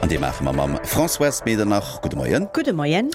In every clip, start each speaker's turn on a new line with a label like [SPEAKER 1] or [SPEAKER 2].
[SPEAKER 1] An déi maache mer mam Françoise Medernach. Gudde Moien.
[SPEAKER 2] Gudde Moien.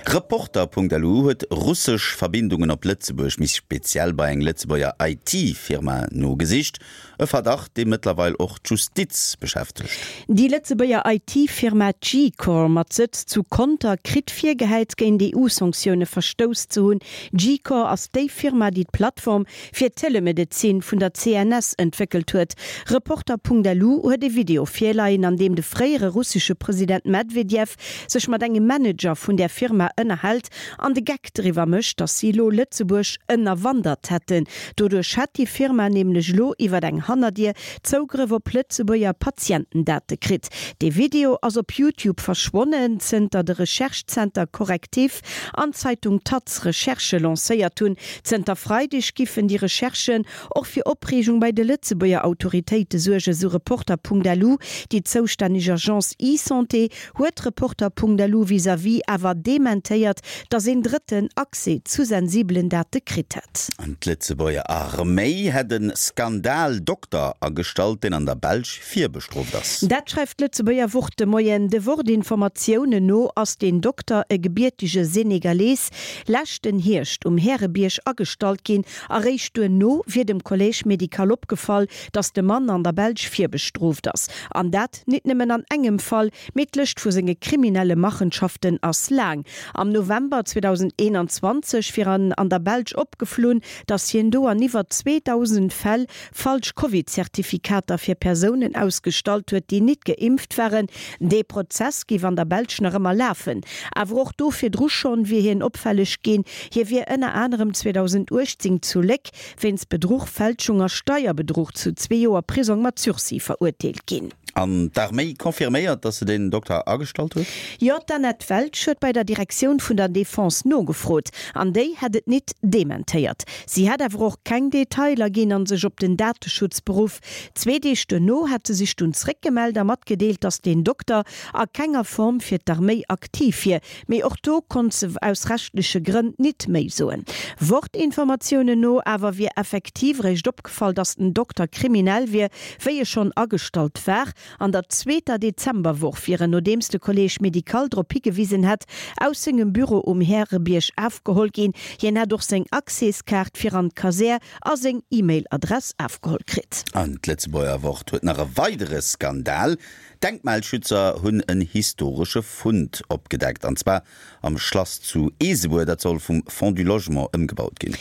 [SPEAKER 1] Reporter.lu huet russesch Verbindungen op Lëtzebuerg, méi speziell bei eng Lëtzebuerger IT-Firma nogesicht. E Verdacht, dee mëttlerweil och d'Justiz beschäftegt.
[SPEAKER 2] Déi Lëtzebuerger IT-Firma Gcore mat Sëtz zu Conter kritt virgehäit, géint EU-Sanktioune verstouss ze hunn. Gcore ass déi Firma, déi d'Plattform fir d'Telemedezin vun der CNS entwéckelt huet. Reporter.lu huet e Video virleien, an deem de fréiere russesche President Medvedev sech mat engem Manager vun där Firma ënnerhält an de Geck driwwer mécht, datt si elo Lëtzebuerg ënnerwandert hätten. Doduerch hätt déi Firma nämlech elo iwwer eng Hannerdier Zougrëff op Lëtzebuerger Patientendate kritt. Dee Video ass op YouTube verschwonnen, zënter de Recherche-Zenter Correctiv an d'Zeitung taz Recherchë lancéiert hunn. Zënter Freideg giffen déi Recherchen och fir Opreegung bei de Lëtzebuerger Autoritéite suergen, sou Reporter.lu. Déi zoustänneg Agence eSanté huet Reporter.lu vis-à-vis awer dementéiert, datt een Drëtten Accès zu sensibelen Date kritt hätt.
[SPEAKER 1] D'Lëtzebuerger Arméi hätt e Skandal-Dokter agestallt, deen an der Belsch virbestrooft ass.
[SPEAKER 2] Dat schreift d'Lëtzebuerger Wort de Moien. De Wort-Informatiounen no ass deen Dokter, e gebiertege Senegalees, leschten Hierscht um Härebierg agestallt ginn. Eréischt duerno wier dem Collège médical opgefall, datt de Mann an der Belsch virbestrooft ass. An dat nit nëmmen an engem Fall, mee d'Lëscht vu senge kriminelle Machenschaften ass laang. Am November 2021 wier an an der Belsch opgeflunn, datt hien do an iwwer 2.000 Fäll falsch Covid-Zertifikater fir Persounen ausgestallt huet, déi nit geimpft waren. Dee Prozess géif an der Belsch nach ëmmer lafen. Awer och do virdru schonn wier hien opfälleg ginn. Hie wier ënner anerem 2018 zu Léck wéinst Bedruch, Fälschung a Steierbedruch zu zwee Joer Prisong mat Sursis verurteelt ginn.
[SPEAKER 1] An d'Arméi confirméiert, datt se den Dokter agestallt huet?
[SPEAKER 2] Jo, d'Annette Welsch huet bei der Direktioun vun der Defense nogefrot, an déi hätt et nit dementéiert. Si hätt awer och keng Detailer ginn an sech op den Dateschutz beruff. Zwee Deeg duerno hätt se sech dunn zréckgemellt a matgedeelt, datt deen Dokter a kenger Form fir d'Arméi aktiv wier. Mee och do konnt se aus rechtleche Grënn nit méi soen. Wort-Informatiounen no awer wier effektiv eréischt opgefall, datt den Dokter kriminell wier, wéi e schonn agestallt war. An der zweeter Dezemberwoch wier en, nodeems de Collège médical drop higewisen hätt, aus sengem Büro um Härebierg afgeholl ginn. Hien hätt och seng Accèskaart fir an d'Kasär a seng E-Mail-Adress afgeholl kritt.
[SPEAKER 1] An d'Lëtzebuerger Wort huet nach e weidere Skandal. Denkmalschützer hunn en historesche Fund opgedeckt, an zwar am Schlass zu Eesebuer. Dat soll vum Fonds du Logement ëmgebaut ginn.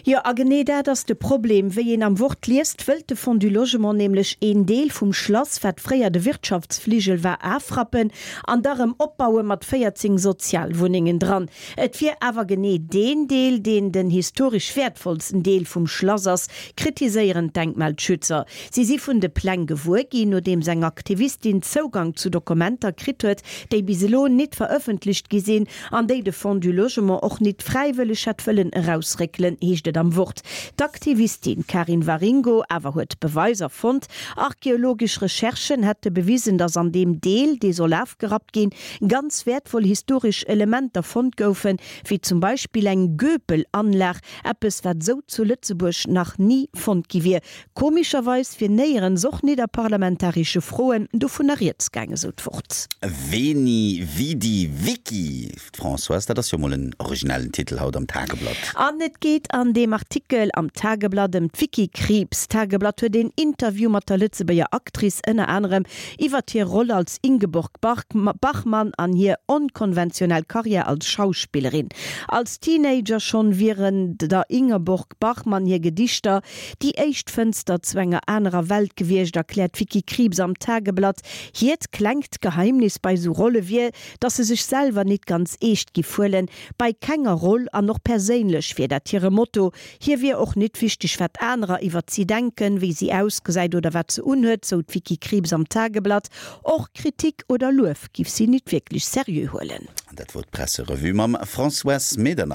[SPEAKER 2] Jo, a genee dat ass de Problem. Wéi een am Wort liest, wëllt de Fonds du Logement nämlech een Deel vum Schlass, wat fréier de Wirtschaftsfligel war, afrappen an da rëm opbaue mat 14 Sozialwunnengen dran. Et wier awer genee deen Deel, deen den historesch wäertvollsten Deel vum Schlass ass, kritiséieren d'Denkmalschützer. Si si vun de Pläng gewuer ginn, nodeems eng Aktivistin Zougang zu Dokumenter kritt huet, déi bis elo nit verëffentlecht gi sinn an déi de Fonds du Logement och nit fräiwëlleg hätt wëllen erausréckelen, heescht et am Wort. D'Aktivistin Karin Waringo awer huet Beweiser fonnt. Archeologesch Recherchen hätte bewisen, datt an deem Deel, dee soll afgerappt ginn, ganz wäertvoll historesch Elementer fonnt goufen, wéi zum Beispill eng Göpel-Anlag, eppes wat esou zu Lëtzebuerg nach ni fonnt gi wier. Komescherweis wier néierens, och nit a parlamentaresche Froen, dovunner rieds gaangen, sou d'Wort.
[SPEAKER 1] Veni, Vidi, Vici, Françoise, dat ass jo mol en originellen Titel haut am Tageblatt.
[SPEAKER 2] An et geet an deem Artikel am Tageblatt ëm d'Vicky Krieps. D'Tageblatt huet een Interview mat der Lëtzebuerger Actrice, ënner anerem iwwert hir Roll als Ingeborg Bachmann an hir onkonventionell Karriär als Schauspillerin. Als Teenager schonn wieren der Ingeborg Bachmann hir Gedichter déi éischt Fënster zu enger anerer Welt gewiescht, erkläert d'Vicky Krieps am Tageblatt. Hiert klengt Geheimnis bei sou Rolle wier, dass se sech selwer nit ganz eescht giff huelen, bei kenger Roll an och perséinlech wier dat hire Motto. Hir wier och nit wichteg, wat anerer iwwert si denken, wéi si ausgesäit oder wat se unhuet, sou d'Vicky Krieps am Tageblatt. Och Kritik oder Luef giff si nit wierklech seriö huelen.
[SPEAKER 1] An dat wor d'Presserevue mam Françoise Medernach.